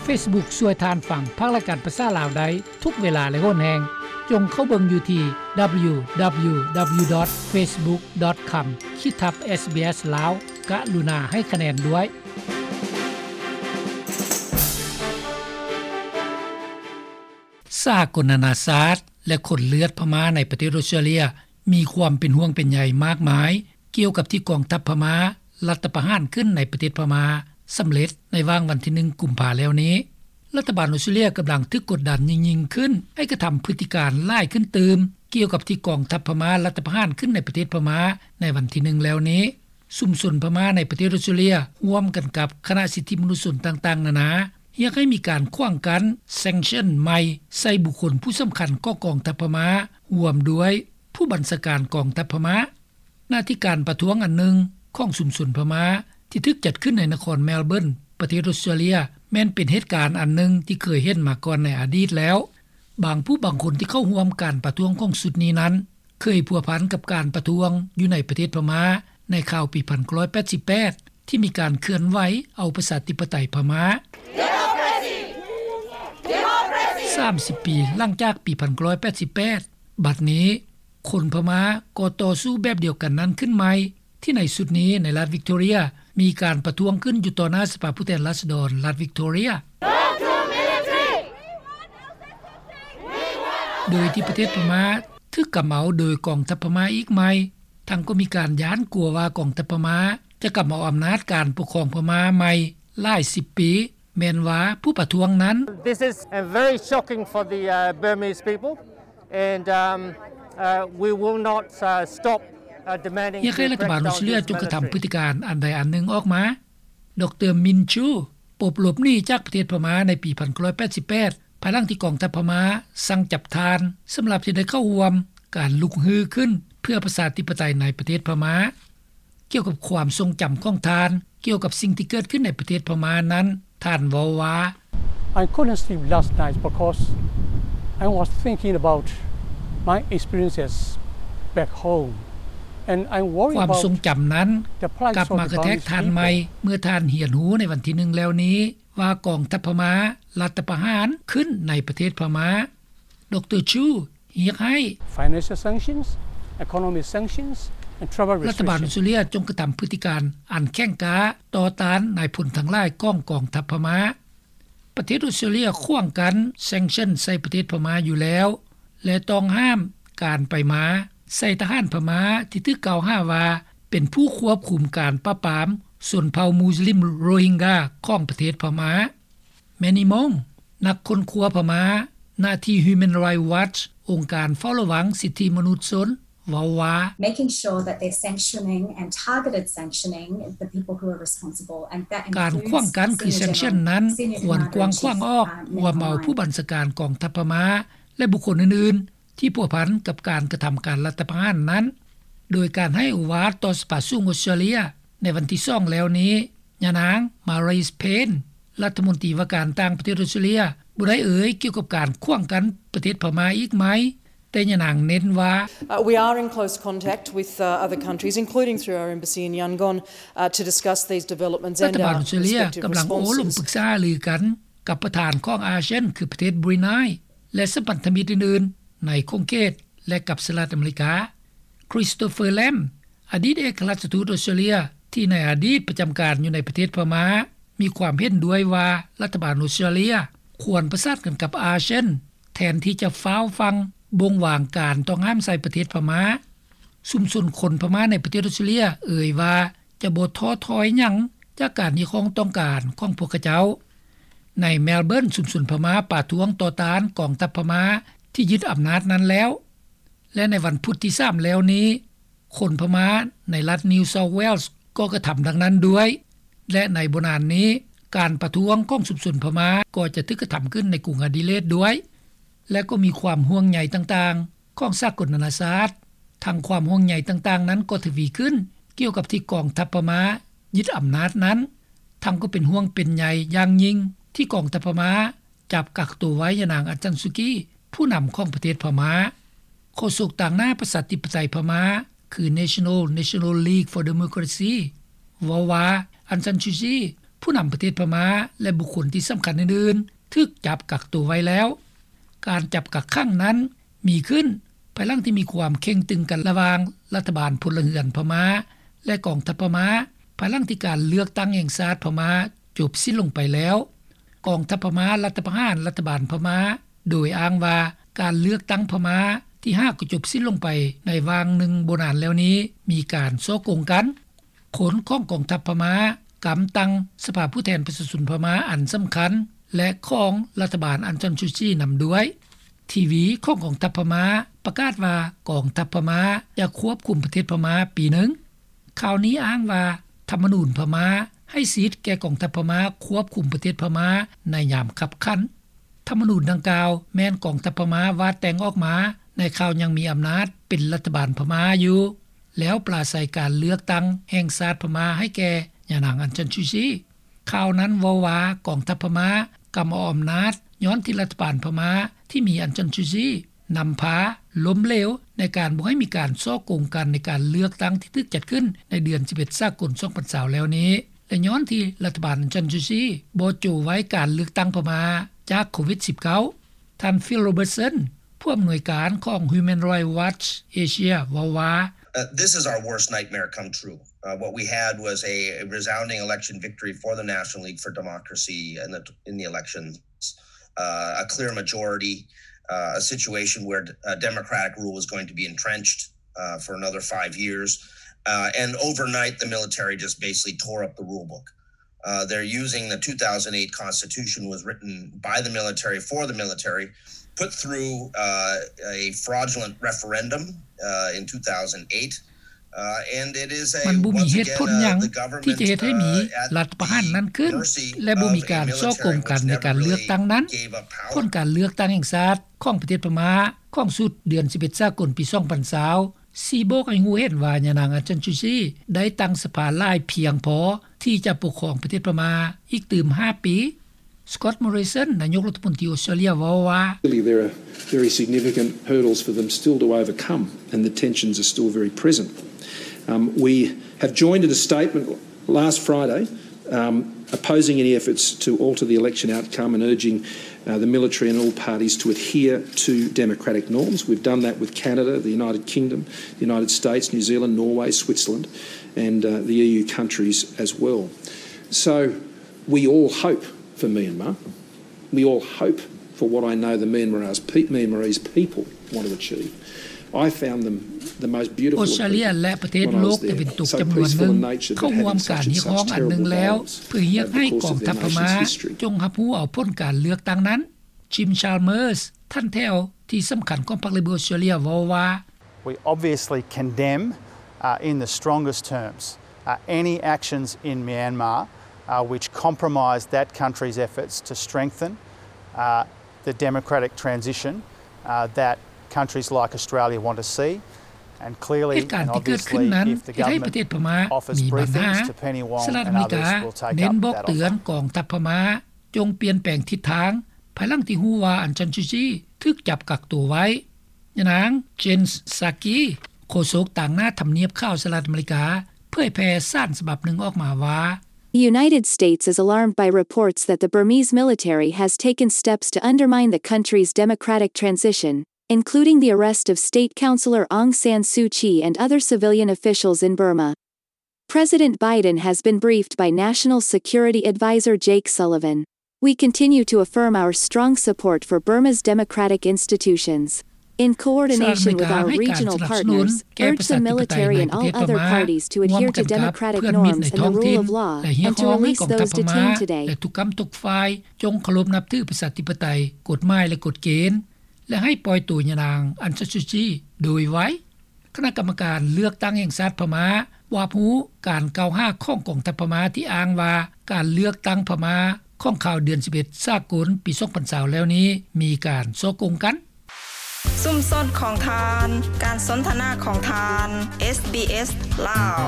ເຟສບຸກຊ່ວຍທ່ານຟັງພາກລາຍການພາສາລາວໄດ້ທຸກເວລາ ແລະ ໂຫນແຮງ. ຈົ່ງເຂົ້າເບິ່ງຢູ່ທີ່ ດັບເບິນຢູ ດັບເບິນຢູ ດັບເບິນຢູ ດອດ ເຟສບຸກ ດອດ ຄອມ ຂີດທັບ ເອສບີເອສ ລາວ. ກະລຸນາໃຫ້ຄະແນນດ້ວຍ. ສາກົນນານາຊາດ ແລະ ຄົນເລືອດພະມ້າໃນປະເທດອົດສະຕຣາເລຍ ມີຄວາມເປັນຫ່ວງເປັນໃຍມາກມາຍ ກ່ຽວກັບທີ່ກອງທັບພະມ້າລັດຖະປະຫານຂຶ້ນໃນປະເທດພະມ້າສຳເລັດໃນຫວ່າງວັນທີໜຶ່ງ ກຸມພາແລ້ວນີ້. ລັດຖະບານອົດສະຕຣາເລຍກຳລັງຖືກກົດດັນຍິ່ງໆຂຶ້ນ ໃຫ້ກະທຳພຶດຕິການຫຼາຍຂຶ້ນຕື່ມ ກ່ຽວກັບທີ່ກອງທັບພະມ້າລັດຖະປະຫານຂຶ້ນໃນປະເທດພະມ້າໃນວັນທີໜຶ່ງແລ້ວນີ້. ຊຸມຊົນພະມ້າໃນປະເທດອົດສະຕຣາເລຍ ຮ່ວມກັນກັບຄະນະສິດທິມະນຸດຊົນຕ່າງໆນານາ ຮຽກໃຫ້ມີການຂວາງກັ້ນ ແຊງຊັນ ໃໝ່ໃສ່ບຸກຄົນຜູ້ສຳຄັນຂອງກອງທັບພະມ້າ ຮ່ວມດ້ວຍຜູ້ບັນຊາການກອງທັບພະມ້າ. ນະທີ່ການປະທ້ວງອັນໜຶ່ງຂອງຊຸມຊົນພະມ້າ ທີ່ຖືກຈັດຂຶ້ນໃນນະຄອນແມລເບີນ ປະເທດອົດສະຕຣາເລຍ ແມ່ນເປັນເຫດການອັນໜຶ່ງທີ່ເຄີຍເຫັນມາກ່ອນໃນອະດີດແລ້ວ. ບາງຜູ້ບາງຄົນທີ່ເຂົ້າຮ່ວມການປະທ້ວງຂອງຊຸດນີ້ນັ້ນ ເຄີຍພົວພັນກັບການປະທ້ວງຢູ່ໃນປະເທດພະມ້າໃນຄາວປີພັນເກົ້າຮ້ອຍແປດສິບແປດ ທີ່ມີການເຄື່ອນໄຫວເອົາປະຊາທິປະໄຕພະມ້າ. ສາມສິບປີຫຼັງຈາກປີພັນເກົ້າຮ້ອຍແປດສິບແປດ ບັດນີ້ ຄົນພະມ້າກໍຕໍ່ສູ້ແບບດຽວກັນນັ້ນຂຶ້ນໃໝ່ ທີ່ໃນຊຸດນີ້ໃນລັດວິກໂຕເຣຍ ມີການປະທ້ວງຂຶ້ນຢູ່ຕໍ່ໜ້າສະພາຜູ້ແທນລາຊະດອນລັດວິກໂຕເຣຍ. ໂດຍທີ່ປະເທດພະມ້າຖືກກຳເອົາໂດຍກອງທັບພະມ້າອີກໃໝ່, ທັງກໍມີການຢ້ານກົວວ່າກອງທັບພະມ້າຈະກຳເອົາອຳນາດການປົກຄອງພະມ້າໃໝ່ຫຼາຍສິບປີ, ແມ່ນວ່າຜູ້ປະທ້ວງນັ້ນ This is, uh, very shocking for the, uh, Burmese people, and, um, uh, we will not, uh, stop, uh, demanding ຮຽກໃຫ້ລັດຖະບານອົດສະຕຣາເລຍຈົ່ງກະທຳພຶດຕິການອັນໃດອັນໜຶ່ງອອກມາ. ດຣ ມິນຊູ ປົບຫຼົບໜີຈາກປະເທດພະມ້າໃນປີພັນເກົ້າຮ້ອຍແປດສິບແປດ ພາຍຫຼັງທີ່ກອງທັບພະມ້າສັ່ງຈັບທ່ານ ສຳລັບທີ່ໄດ້ເຂົ້າຮ່ວມການລຸກຮືຂຶ້ນເພື່ອປະຊາທິປະໄຕໃນປະເທດພະມ້າ. ກ່ຽວກັບຄວາມຊົງຈຳຂອງທ່ານ ກ່ຽວກັບສິ່ງທີ່ເກີດຂຶ້ນໃນປະເທດພະມ້ານັ້ນ, ທ່ານເວົ້າວ່າ I couldn't sleep last night because I was thinking about my experiences back home, and I'm worried ຄວາມຊົງຈຳນັ້ນ about the plight ກັບມາກະແທກທ່ານໃໝ່ of the Burmese people. ເມື່ອທ່ານຮຽນຮູ້ໃນວັນທີໜຶ່ງແລ້ວນີ້ວ່າກອງທັບພະມ້າລັດຖະປະຫານຂຶ້ນໃນປະເທດພະມ້າ. ດຣ ຊູ ຮຽກໃຫ້ Financial sanctions, economic sanctions, and travel ລັດຖະບານອົດສະຕຣາເລຍ restrictions. ຈົ່ງກະທຳພຶດຕິການອັນແຂງກ້າຕໍ່ຕ້ານນາຍພົນທັງຫຼາຍຂອງກອງທັບພະມ້າ. ປະເທດອົດສະຕຣາເລຍຂວາງກັ້ນ sanction ໃສ່ປະເທດພະມ້າຢູ່ແລ້ວ ແລະ ຕ້ອງຫ້າມການໄປມາໃສ່ທະຫານພະມ້າທີ່ຖືກກ່າວຫາວ່າເປັນຜູ້ຄວບຄຸມການປາບປາມຊົນເຜົ່າມຸສລິມໂຣຮິງກາຂອງປະເທດພະມ້າ. ແມນີ ມົງ ນັກຄົ້ນຄວ້າພະມ້າ ໜ້າທີ່ Human Rights Watch ອົງການເຝົ້າລະວັງສິດທິມະນຸດຊົນ ເວົ້າວ່າ Making sure that their sanctioning and targeted sanctioning the people who are responsible, and that includes ການຂວາງກັ້ນຄື sanction ນັ້ນ ຄວນກວ້າງຂວາງອອກ ຮວມເອົາຜູ້ບັນຊາການກອງທັບພະມ້າ ແລະ ບຸກຄົນອື່ນໆ ທີ່ພົວພັນກັບການກະທຳການລັດຖະປະຫານນັ້ນ, ໂດຍການໃຫ້ໂອວາດຕໍ່ສະພາສູງອົດສະຕຣາເລຍໃນວັນທີສອງແລ້ວນີ້, ຍານາງ ມາຣີສ ເພນ ລັດຖະມົນຕີວ່າການຕ່າງປະເທດອົດສະຕຣາເລຍ ບໍ່ໄດ້ເອີ່ຍກ່ຽວກັບການຂວາງກັ້ນປະເທດພະມ້າອີກໃໝ່, ແຕ່ຍານາງເນັ້ນວ່າ Uh, we are in close contact with, uh, other countries, including through our embassy in Yangon, uh, to discuss these developments and our respective responses. ລັດຖະບານອົດສະຕຣາເລຍກຳລັງໂອ້ລົມປຶກສາຫາລືກັນກັບປະທານຂອງອາຊຽນ ຄືປະເທດບຣູໄນ ແລະ ສະພັນທະມິດອື່ນໆໃນຂົງເຂດ ແລະ ກັບສະຫະລັດອາເມລິກາ. ຄຣິສໂຕເຟີ ແລມ ອະດີດເອກອັຄລັດທູດອົດສະຕຣາເລຍ ທີ່ໃນອະດີດປະຈຳການຢູ່ໃນປະເທດພະມ້າ ມີຄວາມເຫັນດ້ວຍວ່າລັດຖະບານອົດສະຕຣາເລຍຄວນປະສານກັນກັບອາຊຽນ ແທນທີ່ຈະຟ້າວຟັ່ງບົ່ງວາງການຕ້ອງຫ້າມໃສ່ປະເທດພະມ້າ. ຊຸມຊົນຄົນພະມ້າໃນປະເທດອົດສະຕຣາເລຍເອີ່ຍວ່າຈະບໍ່ທໍ້ຖອຍຫຍັງຈາກການຮຽກຮ້ອງຕ້ອງການຂອງພວກເຂົາເຈົ້າ. ໃນແມລເບີນ ຊຸມຊົນພະມ້າປະທ້ວງຕໍ່ຕ້ານກອງທັບພະມ້າທີ່ຍຶດອຳນາດນັ້ນແລ້ວ ແລະ ໃນວັນພຸດທີສາມແລ້ວນີ້ ຄົນພະມ້າໃນລັດ New South Wales ກໍກະທຳດັ່ງນັ້ນດ້ວຍ ແລະ ໃນບໍ່ນານນີ້ ການປະທ້ວງຂອງຊຸມຊົນພະມ້າກໍຈະຖືກກະທຳຂຶ້ນໃນກຸງອະດີເລດດ້ວຍ ແລະ ກໍມີຄວາມຫ່ວງໃຍຕ່າງໆຂອງສາກົນນານາຊາດ. ທັງຄວາມຫ່ວງໃຍຕ່າງໆນັ້ນກໍທະວີຂຶ້ນກ່ຽວກັບທີ່ກອງທັບພະມ້າຍຶດອຳນາດນັ້ນ, ທັງກໍເປັນຫ່ວງເປັນໃຍຢ່າງຍິ່ງທີ່ກອງທັບພະມ້າ ຈັບກັກໂຕໄວ້ຍານາງ ອາງ ຊານ ຊູ ກີ ຜູ້ນຳຂອງປະເທດພະມ້າ. ໂຄສົກຕາງໜ້າປະຊາທິປະໄຕພະມ້າ ຄື National, National League for Democracy ເວົ້າວ່າ ອາງ ຊານ ຊູ ກີ ເ ຜູ້ນຳປະເທດພະມ້າ ແລະ ບຸກຄົນທີ່ສຳຄັນອື່ນໆ ຖືກຈັບກັກໂຕໄວ້ແລ້ວ. ການຈັບກັກຂັງນັ້ນມີຂຶ້ນ ພາຍຫຼັງທີ່ມີຄວາມເຄັ່ງຕຶງກັນລະຫວ່າງລັດຖະບານພົນລະເຮືອນພະມ້າ ແລະ ກອງທັບພະມ້າ ພາຍຫຼັງທີ່ການເລືອກຕັ້ງແຫ່ງຊາດພະມ້າຈົບສິ້ນລົງໄປແລ້ວ. ກອງທັບພະມ້າລັດຖະປະຫານລັດຖະບານພະມ້າ ໂດຍອ້າງວ່າການເລືອກຕັ້ງພະມ້າທີ່ຫາກໍຈົບສິ້ນລົງໄປໃນຫວ່າງໜຶ່ງບໍ່ນານແລ້ວນີ້ ມີການສໍ້ໂກງກັນ. ຄົນຂອງກອງທັບພະມ້າກຳຕັ້ງສະພາຜູ້ແທນປະຊາຊົນພະມ້າອັນສຳຄັນ ແລະ ຂອງລັດຖະບານອັງຊານຊູຈີນຳດ້ວຍ. ທີວີຂອງກອງທັບພະມ້າປະກາດວ່າ ກອງທັບພະມ້າຈະຄວບຄຸມປະເທດພະມ້າປີໜຶ່ງ. ຂ່າວນີ້ອ້າງວ່າ ທຳມະນູນພະມ້າໃຫ້ສິດແກ່ກອງທັບພະມ້າຄວບຄຸມປະເທດພະມ້າໃນຍາມຄັບຂັນ. ທຳມະນູນດັ່ງກ່າວແມ່ນກອງທັບພະມ້າວາດແຕ່ງອອກມາໃນຄາວຍັງມີອຳນາດເປັນລັດຖະບານພະມ້າຢູ່ ແລ້ວປາໄສການເລືອກຕັ້ງແຫ່ງຊາດພະມ້າໃຫ້ແກ່ຍານາງອັງຊານຊູຈີ. ຂ່າວນັ້ນເວົ້າວ່າ ກອງທັບພະມ້າກຳເອົາອຳນາດ ຍ້ອນທີ່ລັດຖະບານພະມ້າທີ່ມີອັງຊານຊູຈີນຳພາລົ້ມເຫຼວ ໃນການບໍ່ໃຫ້ມີການສໍ້ໂກງກັນໃນການເລືອກຕັ້ງທີ່ຖືກຈັດຂຶ້ນໃນເດືອນສິບເອັດສາກົນສອງພັນຊາວແລ້ວນີ້ ແລະ ຍ້ອນທີ່ລັດຖະບານອັງຊານຊູຈີບໍ່ໂຈະໄວ້ການເລືອກຕັ້ງພະມ້າຈາກໂຄວິດສິບເກົ້າ. ທ່ານ Phil Robertson ຜູ້ອຳນວຍການຂອງ Human Rights Watch Asia ເວົ້າວ່າ Uh, this is our worst nightmare come true. Uh, what we had was a, a resounding election victory for the National League for Democracy in the, in the elections, uh, a clear majority, uh, a situation where, uh, democratic rule was going to be entrenched, uh, for another five years. Uh, and overnight, the military just basically tore up the rule book. Uh, they're using the two thousand eight Constitution was written by the military for the military, put through, uh, a fraudulent referendum, uh, in two thousand eight. Uh, and it is a, ມັນບໍ່ມີເຫດຜົນຫຍັງທີ່ຈະເຮັດໃຫ້ມີລັດປະຫານນັ້ນຂຶ້ນ ແລະ ບໍ່ມີການສໍ້ໂກງກັນໃນການເລືອກຕັ້ງນັ້ນ. ຜົນການເລືອກຕັ້ງແຫ່ງຊາດຂອງປະເທດພະມ້າຂອງຊຸດເດືອນສິບເອັດສາກົນປີສອງພັນຊາວ ຊີ້ບອກໃຫ້ຮູ້ເຫັນວ່າຍານາງອັງຊານຊູຈີໄດ້ຕັ້ງສະພາຫຼາຍພຽງພໍທີ່ຈະປົກຄອງປະເທດພະມ້າອີກຕື່ມຫ້າປີ. Scott Morrison ນາຍົກລັດຖະມົນຕີອົດສະຕຣາເລຍເວົ້າວ່າ Clearly, there are very significant hurdles for them still to overcome, and the tensions are still very present. Um, we have joined in a statement last Friday, um, opposing any efforts to alter the election outcome and urging, uh, the military and all parties to adhere to democratic norms. We've done that with Canada, the United Kingdom, the United States, New Zealand, Norway, Switzerland, and, uh, the E U countries as well. So we all hope for Myanmar. We all hope for what I know the Myanmarese pe-, Myanmarese people want to achieve. I found them the most beautiful ອອສເຕຣເລຍ ແລະ ປະເທດໂລກຕາເວັນຕົກຈຳນວນໜຶ່ງເຂົ້າຮ່ວມການຮຽກຮ້ອງອັນໜຶ່ງແລ້ວ ເພື່ອຮຽກໃຫ້ກອງທັບພະມ້າຈົ່ງຮັບຮູ້ເອົາຜົນການເລືອກຕັ້ງນັ້ນ. Jim Chalmers ທ່ານແຖວທີ່ສຳຄັນຂອງພັກ Labor ອອສເຕຣເລຍເວົ້າວ່າ We obviously condemn, uh, in the strongest terms, uh, any actions in Myanmar, uh, which compromise that country's efforts to strengthen, uh, the democratic transition, uh, that countries like Australia want to see. And clearly, ເຫດການທີ່ເກີດຂຶ້ນນັ້ນເຮັດໃຫ້ປະເທດພະມ້າມີບັນຫາ. ສະຫະລັດອາເມລິກາເນັ້ນບອກເຕືອນກອງທັບພະມ້າ ຈົ່ງປ່ຽນແປງທິດທາງ ພາຍຫຼັງທີ່ຮູ້ວ່າອັງຊານຊູຈີຖືກຈັບກັກໂຕໄວ້. ຍານາງ Jen Psaki ໂຄສົກຕາງໜ້າທຳນຽບຂາວສະຫະລັດອາເມລິກາ ເຜີຍແຜ່ສານສະບັບໜຶ່ງອອກມາວ່າ The United States is alarmed by reports that the Burmese military has taken steps to undermine the country's democratic transition, including the arrest of state councillor Aung San Suu Kyi and other civilian officials in Burma. President Biden has been briefed by National Security Advisor Jake Sullivan. We continue to affirm our strong support for Burma's democratic institutions. In coordination with our regional partners, urge the military and all other parties to adhere to democratic norms and the rule of law and to release those detained today. ແລະ ທຸກກຳທຸກຝ່າຍຈົ່ງເຄົາລົບນັບຖືປະຊາທິປະໄຕ, ກົດໝາຍ ແລະ ກົດເກນ ແລະ ໃຫ້ປ່ອຍໂຕຍານາງອັງຊານຊູຈີໂດຍໄວ. ຄະນະກຳມະການເລືອກຕັ້ງແຫ່ງຊາດພະມ້າຮັບຮູ້ການກ່າວຫາຂອງກອງທັບພະມ້າທີ່ອ້າງວ່າ ການເລືອກຕັ້ງພະມ້າຂອງຄາວເດືອນສິບເອັດສາກົນປີສອງພັນຊາວແລ້ວນີ້ ມີການສໍ້ໂກງກັນ. ຊຸມຊົນຂອງທ່ານ, ການສົນທະນາຂອງທ່ານ, ເອສບີເອສ ລາວ.